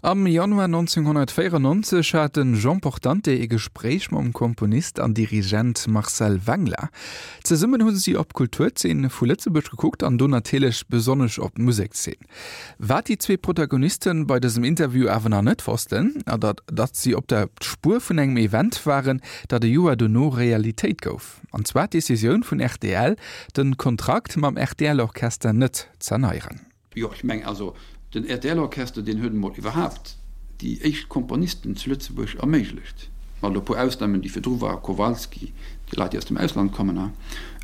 Am Januar 1994 hat de Jean Portante ee Gespréich mam Komponist an Dirigent Marcel Wengler. Zesummen hu si op d'Kulturzeen vu Lëtzebuerg gekuckt an do natierlech besonnesch op d'Musekszeen. Wat déi zwee Protagonisten bei dësem Interview awer nach net wossten, ass datt si op der Spuer vun engem Event waren, dat e Joer dono Realitéit gouf. An zwar d'Decisioun vun rtl, de Kontrakt mam RTL-Orchester net z'erneieren. Jo, ech mengen also, den RTL-Orchester, deen huet emol iwwerhaapt déi éischt Komponisten zu Lëtzebuerg erméiglecht, mat e puer Ausnamen, déi virdru waren, Kowalski, déi Leit, déi aus dem Ausland kommen.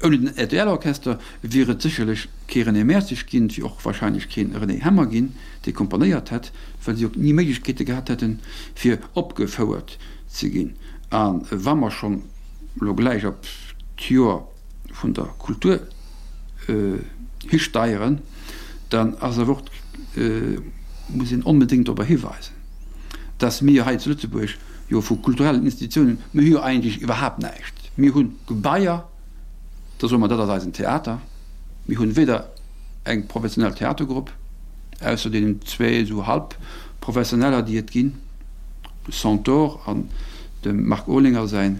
Ouni den RTL-Orchester wier et sécherlech kee René Mertzig ginn, et wier och wahrscheinlech kee René Hemmer ginn, dee komponéiert hätt, well si och ni Méiglechkeete gehat hätten, fir opgefouert ze ginn. A wa mer schonn elo gläich op d'Joer vun der Kultur histeieren, dann ass awer och, muss een onbedéngt dorobber hiweisen, dass mir hei zu Lëtzebuerg jo vu kulturellen Institutiounen, mir hu jo eigentlech iwwerhaapt näischt. Mir hu Gebaier, da soe mer, dat ass eisen Theater. Mir hunn weder eng professionell Theatergrupp, ausser deenen zwee esou Halbprofessioneller, déi et ginn, de Centaure an dem Marc Olinger säin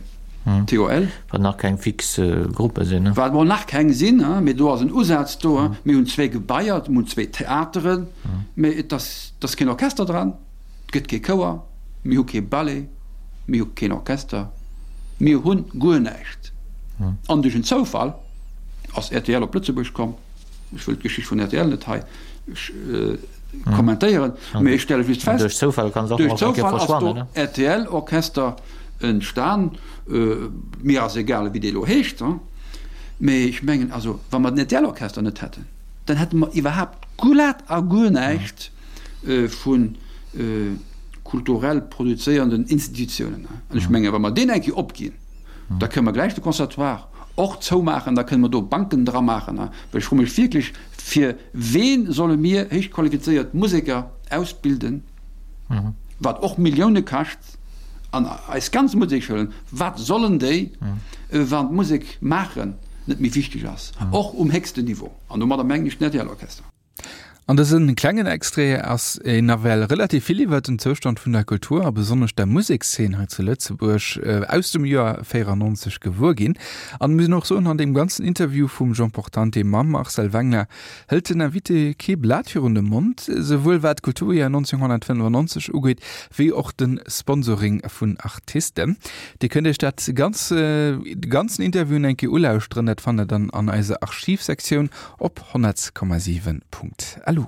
TOL. Wat nach keng fix Gruppe sinn. Wat mol nach keng sinn, mee do ass en Usaz do. Mir hunn zwee Gebaier, mir hunn zwee Theateren, mee et ass, et ass keen Orchester dran, et gëtt kee Chouer, mir hu kee Ballet, mir hu keen Orchester, mir hunn guer näischt. An duerch en Zoufall ass rtl op Lëtzebuerg komm. Ech wëll d'Geschicht vun rtl net hei kommentéieren, mee ech stelle just fest, duerch Zoufall ass do RTL-Orchester entstan. Mir ass egal, wéi dee elo heescht, mee ech mengen also, wa mer den RTL-Orchester net hätten, dann hätte mer iwwerhaapt glat a guer näischt vu kulturell produzéierenden Institutiounen. An ech mengen, wa mer deen eng Kéier opginn, da kënne mer gläich de Conservatoire och zoumaachen, da kënne mer do Banken dramaachen. Well ech froe mech wierklech, fir ween solle mir héichqualifizéiert Museker ausbilden, wat och Millioune kascht, an eis ganz Musekschoulen, wat sollen déi, wann d'Musek maachen net méi wichteg ass, och um héchsten Niveau, an domadder mengen ech den RTL-Orchester. An dësem klengen Extrait ass een nawell relativ vill iwwert den Zoustand vun der Kultur a besonnesch der Musekszeen hei zu Lëtzebuerg aus dem Joer 94 gewuer ginn. An mir och soen, an deem ganzen Interview vum Jean Portante mam Marcel Wengler hëlt den Invité kee Blat virun de Mond, souwuel wat d'Kulturjoer 1995 ugeet, wéi och de Sponsoring vun Artisten. Dir kënnt Iech dat ganz, de ganzen Interview eng Kéier ulauschteren, dat fannt der dann an eiser Archivsektioun op 100,7.lu.